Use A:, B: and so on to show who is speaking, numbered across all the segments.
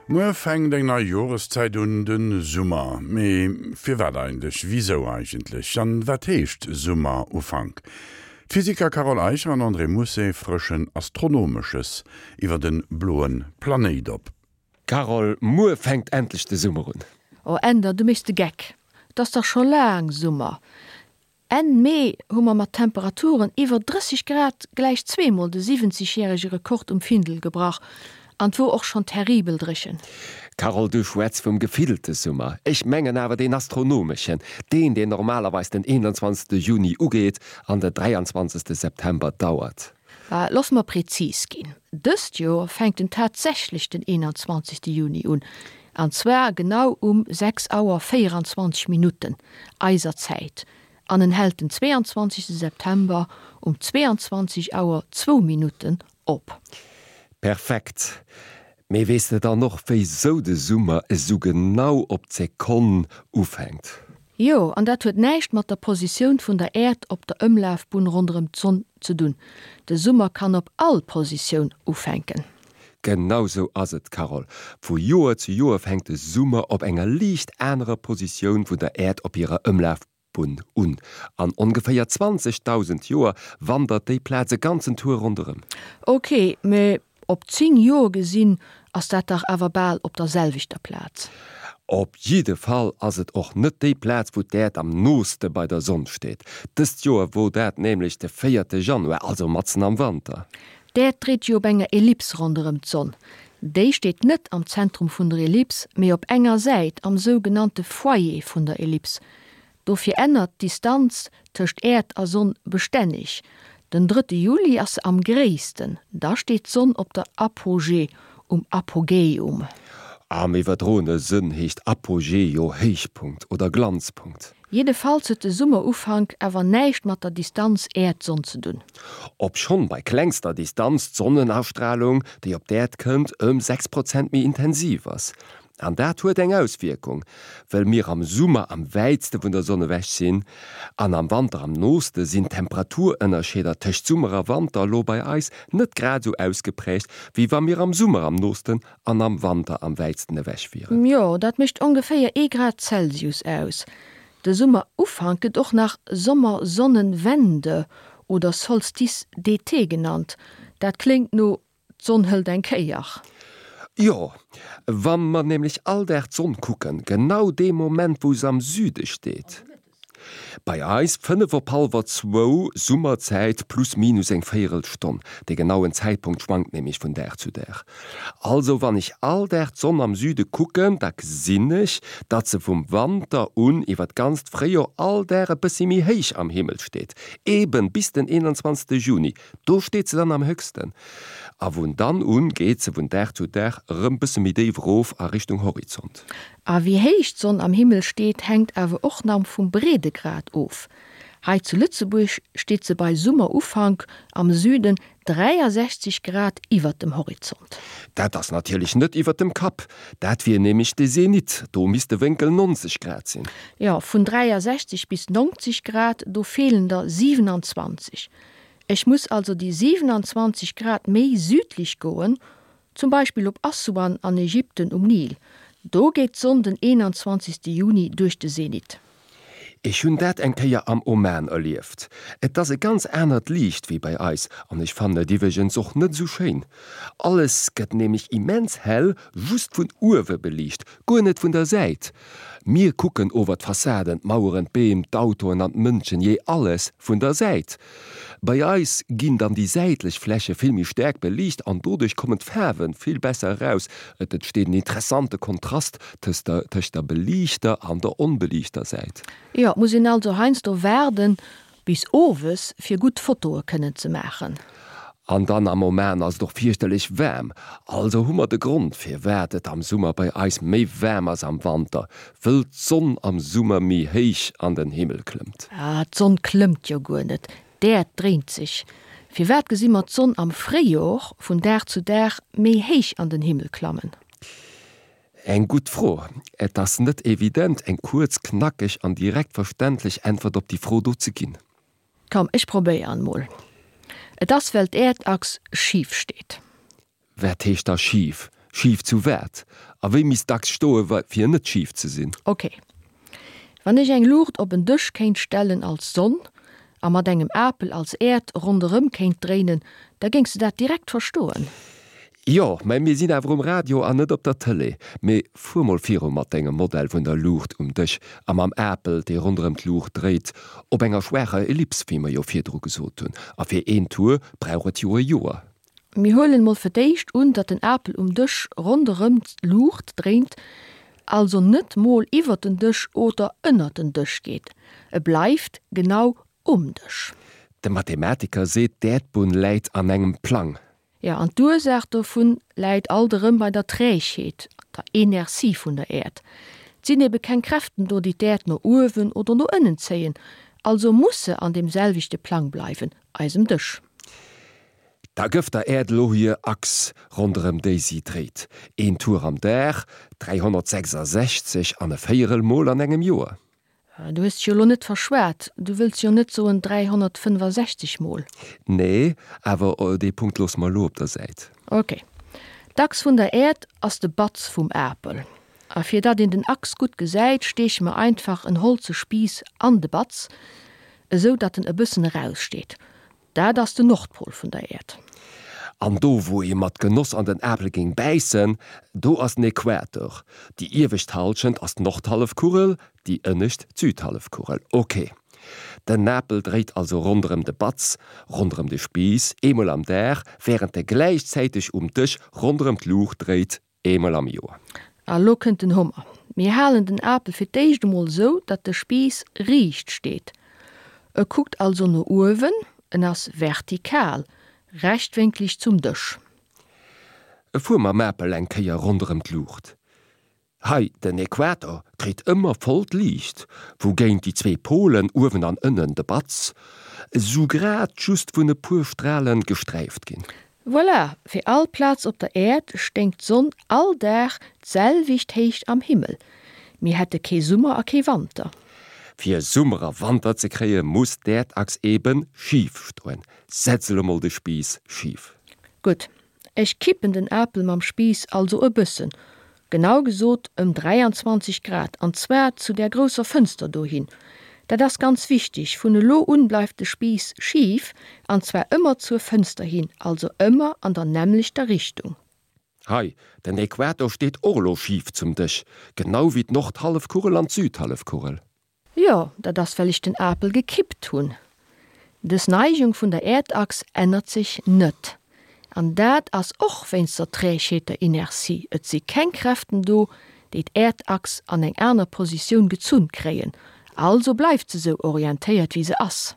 A: Muer fänkt eng nei Joreszäit un, de Summer. Mee firwat eigentlech? Wisou eigentlech? An wat heescht Summerufank? D'Physiker Carole Eicher an André Mousset frëschen Astronomesches iwwer de bloe Planéit op.
B: Carole, Muer fänkt endlech de Summer un.
C: Oh Änder, du méchs de Geck, 't ass dach scho laang Summer. Enn Mee hu mer mat Temperaturen iwwer 30 Grad gläich zweemol de 70 järege Rekord um Findel gebrach an 't wor och schonn terribel dréchen.
B: Carole, du schwätz vum gefillte Summer, ech mengen awer deen astronomeschen, deen deen normalerweis den 21 Juni ugeet an de 23 September dauert.
C: Loosse mer prezis ginn, Dëst Joer fänkt en tatsächlech den 21 Juni un, an zwar genau um 6 Auer 24 Minutten eiser Zäit, an en hält den 22 September um 22 Auer zwou Minutten op.
B: Perfekt! Mee weess de dann och wéisou de Summer esou genau op d'Sekonn ufänkt?
C: Jo, an dat huet näischt mat der Positioun vun der Äerd op der Ëmlafbunn ronderëm d'Sonn ze dunn. De Summer kann op all Positioun ufänken.
B: Genau sou ass et, Carole. Vu Joer zu Joer fänkt de Summer op enger liicht anerer Positioun vun der Äerd op hirer Ëmlafbunn un. An ongeféier 20.000 Joer wandert déi Plaz e ganzen Tour ronderëm.
C: Ok, mee Op 10 Joer gesinn ass dat dach awer bal op der selwechter Plaz.
B: Op jidde Fall ass et och net déi Plaz wou d'Äerd am nooste bei der Sonn steet. Dëst Joer wor dat nämlech de véierte Januar, also matzen am Wanter.
C: D'Äerd dréit jo op enger Ellips ronderëm d'Sonn. Déi steet net am Zentrum vun der Ellips, mee op enger Säit, am sougenannte Foyer vun der Ellips. Dofir ännert d'Distanz tëscht Äerd a Sonn bestänneg. Den drëtte Juli ass se am gréissten, da steet d'Sonn op der Apogee, um Apogäum.
B: Am iwwerdroene Sënn heescht Apogee jo Héichpunkt oder Glanzpunkt.
C: Jiddefalls huet de Summerufank awer näischt mat der Distanz Äerd-Sonn ze dunn.
B: Obschonn bei klengster Distanz d'Sonnenastralung, déi op d'Äerd kënnt, ëm 6 Prozent méi intensiv ass. An dat huet eng Auswierkung, Wëll mir am Summer am wäitste vun der Sonn ewech sinn an am Wanter am nooste, sinn d'Temperaturënnerscheeder tëscht Summer a Wanter elo bei eis net grad esou ausgeprägt, wéi wa mir am Summer am noosten an am Wanter am wäitsten ewech wieren.
C: Jo, dat mécht ongeféier ee Grad Celsius aus. De Summerufank gëtt och nach Sommersonnenwende oder Solstice d'été genannt. Dat kléngt no D'Sonn hëlt eng Kéier.
B: Jo, wa mer nämlech all Dag d'Sonn kucken, genau dee Moment wou se am Süde steet, bei eis 5 op hallwer zwou Summerzäit, plus minus eng Véierelstonn, de genauen Zäitpunkt schwankt nämlech vun Dag zu Dag. Also wann ech all Dag d'Sonn am Süde kucken, da gesinn ech, datt se vum Wanter un iwwer d'ganzt Fréijor all Dag e bëssi méi héich am Himmel steet, eben bis den 21 Juni. Do steet se dann am héchsten, a vun dann un geet se vun Dag zu Dag erëm bësse méi déif erof a Richtung Horizont.
C: A wéi héich d'Sonn am Himmel steet, hänkt awer och nach vum Breedegrad of. Hei zu Lëtzebuerg steet se bei Summerufank am Süden 63 Grad iwwert dem Horizont.
B: Dat ass natierlech net iwwert dem Kapp, dat wier nämlech de Zenit, do misst de Wénkel 90 Grad sinn.
C: Jo, vun 63 bis 90 Grad, do feelen der 27. Ech muss also déi 27 Grad méi südlich goen, zum Beispill op Assuan an Ägypten um Nil. Do geet d'Sonn den 21. Juni duerch de Zenit.
B: Ech hunn dat eng Kéier am Oman erlieft. Et ass e ganz anert Liicht wéi bei eis an ech fannen et iwweregens och net esou schéin. Alles gëtt nämlech immens hell just vun uewe beliicht, guer net vun der Säit. Mir kucken ower d'Fassaden, d'Maueren, d'Beem, d'Autoen an d'Mënschen, jee alles vun der Säit. Bei eis ginn dann déi säitlech Fläche vill méi staark beliicht an doduerch kommen d'Faarwe vill besser eraus. Et entsteet en interessante Kontrast tëscht der beliichter an der onbeliichter Säit.
C: Jo, et muss een also heiansdo waarden bis owes fir gutt Fotoe kënnen ze maachen.
B: An dann am Oman ass et och fierchterlech waarm, also hu mer de Grond firwat et am Summer bei eis méi waarm ass am Wanter, wëll d'Sonn am Summer méi héich an den Himmel klëmmt.
C: Ah, d'Sonn klëmmt jo guer net, d'Äerd dréint sech. Firwat gesi mer d'Sonn am Fréijor vun Dag zu Dag méi héich an den Himmel klammen?
B: Eng gutt Fro. Et ass net evident eng kuerz, knackeg an direkt verständlech Äntwert op déi Fro do ze ginn.
C: Komm, ech probéieren mol. Et ass well d'Äerdachs schif steet.
B: Wat heescht da schif? Schif zu wat? A wéi misst d'Achs stoe fir net schif ze sinn?
C: Ok. Wann ech eng Luucht op en Dësch kéint stellen als Sonn a mat engem Apel als Äerd ronderëm kéint dréinen, da géings de dat direkt verstoen.
B: Jo, mä mir sinn awer um Radio an net op der Tëlee. Mee fuer mol viru mat dengem Modell vun der Luucht um Dësch a mam Apel, dee ronderëm d'Luucht dréit, op enger schwaacher Ellips, wéi mer jo virdru gesot hunn. A fir een Tour brauch et jo e Joer.
C: Mir huelen mol fir d'éischt un, datt den Apel um Dësch ronderëm d'Luucht dréint, also net mol iwwert den Dësch oder ënnert den Dësch geet. E bleift genau um Dësch.
B: De Mathematiker seet, d'Äerdbunn läit an engem Plang.
C: Jo, an d'Ursaach dovun läit alt erëm bei der Trägheet, der Inertie vun der Äerd. Et sinn ebe keng Kräften do, déi d'Äerd no uewen oder no ënnen zéien, also muss se an deem selwechte Plang bleiwen, eisem Dësch.
B: Da gëff der Äerd elo hir Achs, ronderëm déi si dréit, een Tour am Dag, 366 an e Véierel Mol an engem Joer.
C: Du hues dech jo elo net verschwat, du wëlls jo net soen 365 Mol?
B: Nee, awer dee Punkt loosse mer elo op der Säit.
C: Ok. D'Achs vun der Äerd ass de Batz vum Apel. A fir datt een den Achs gutt gesäit, steeche mer einfach en holze Spiiss an de Batz, esou datt en e bëssen eraussteet. Dat ass den Nordpol vun der Äerd.
B: An do wou ee mat Genoss an den Apel géing bäissen, do ass den Äquator. Déi iewescht Halschent ass d'Nordhallefkugel, déi ënnescht d'Südhallefkugel. Ok. Den Apel dréit also ronderëm de Batz, ronderëm de Spiiss, eemol am Dag, wärend e gläichzäiteg um Dësch ronderëm d'Luucht dréit, Eemol am Joer.
C: A lo kënnt den Hummer. Mir halen den Apel fir d'éischt emol esou, datt de Spiiss riicht steet. E kuckt also no uewen, en ass vertikal, rechtwénkleg zum Dësch.
B: Fuer mam Apel eng Kéier ronderëm d'Luucht. Hei, den Äquator kritt ëmmer vollt Liicht, wougéint déi zwee Polen, uewen an ënnen, de Batz, esou grad just vun e puer Stralen gesträift ginn.
C: Voilà, fir all Plaz op der Äerd stéing d'Sonn all Dag d'selwecht héicht am Himmel. Mir hätte kee Summer a kee Wanter.
B: Fir Summer a Wanter ze kréie muss d'Äerdachs eben schif stoen. Setz elo mol de Spiiss schif.
C: Gutt, ech kippen den Apel mam Spiiss also e bëssen, Genau gesot ëm 23 Grad, an zwar zu där grousser Fënster dohin. Dat ass ganz wichteg, vun elo un bleift de Spiiss schif, an zwar ëmmer zur Fënster hin, also ëmmer an der nämmlechter Richtung.
B: Hei, den Äquator steet och elo schif zum Dësch, genau wéi d'Nordhallefkugel an d'Südhallefkugel.
C: Jo, dat ass well ech den Apel gekippt hunn. Dës Neigung vun der Äerdachs ännert sech net. An dat ass och wéinst der Trägheet, der Inertie. Et si keng Kräften do, déi d'Äerdachs an eng aner Positioun gezunn kréien, also bleift se sou orientéiert wéi se ass.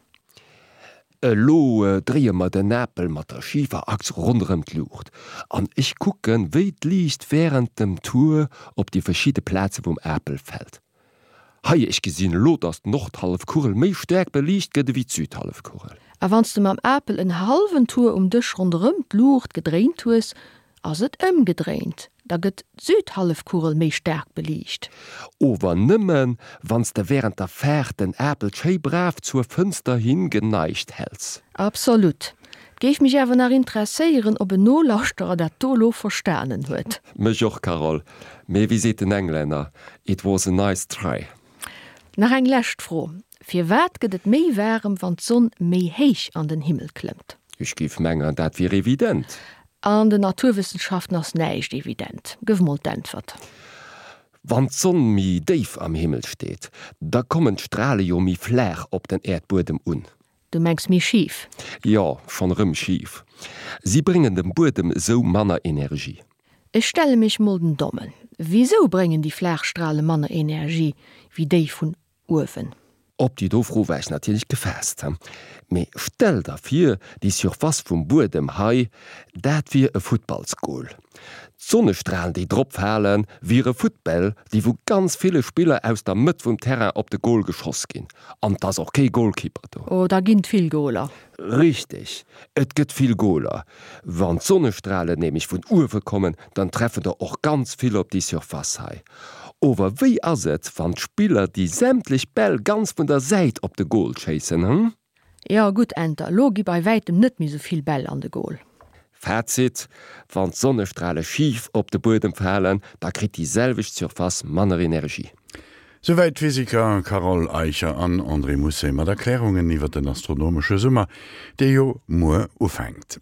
B: Elo dréie mer den Apel mat der schifer Achs ronderëm d'Luucht an ech kucken, wéi d'Liicht wärend dem Tour op déi verschidde Plaze vum Apel fält. Hei, ech gesinn elo, dass d'Nordhallefkugel méi staark beliicht gëtt ewéi d'Südhallefkugel.
C: A wann s de mam Apel en hallwen Tour um Dësch ronderëm d'Luucht gedréint hues, ass et ëmgedréint, da gëtt d'Südhallefkugel méi staark beliicht.
B: Ower nëmmen, wann s de wärend der Faart den Apel schéi brav zur Fënster hin geneigt häls.
C: Absolut. 't géif mech awer nach interesséieren, ob en Nolauschterer dat do elo verstanen huet.
B: Mech och, Carole. Mee wéi seet den Englänner, It was a nice try.
C: Nach eng lescht Fro, Firwat gëtt et méi waarem, wann d'Sonn méi héich an den Himmel klëmmt?
B: Ech géif mengen, dat wier evident.
C: An den Naturwëssenschaften ass näischt evident. Gëff mol d'Äntwert.
B: Wann d'Sonn méi déif am Himmel steet, da kommen d'Strale jo méi flaach op den Äerdbuedem un.
C: Du mengs méi schif?
B: Jo, schonn erëm schif. Si bréngen dem Buedem esou manner Energie.
C: Ech stelle mech mol den Dommen. Wisou bréngen déi flaach Strale manner Energie wéi déi vun uewen?
B: Op déi do Fro war ech natierlech gefaasst. Mee stell der vir, déi Surface vum Buedem hei, dat wier e Futtballsgol. D'Sonnestralen, déi drop falen, wiere Futtbäll, déi vu ganz ville Spiller aus der Mëtt vum Terrain op de Gol geschoss ginn. An 't ass och kee Golkipper do.
C: Oh, da ginn 't vill Goler.
B: Richteg, et gëtt vill Goler. Wann d'Sonnestralen nämlech vun uewe kommen, dann treffen der och ganz vill op déi Surface hei. Ower wéi ass et, wann d'Spiller déi sämtlech Bäll ganz vun der Säit op de Gol schéissen, hm?
C: Jo, gutt, Enter, elo gi bei wäitem net méi sou vill Bäll an de Gol.
B: Fazit, Wann d'Sonnestrale schif op de Buedem falen, da kritt déi selwecht Surface manner Energie.
A: Souwäit d'Physiker Carole Eicher an André Mousset mat Erklärungen iwwer den astronomesche Summer, dee jo muer ufänkt.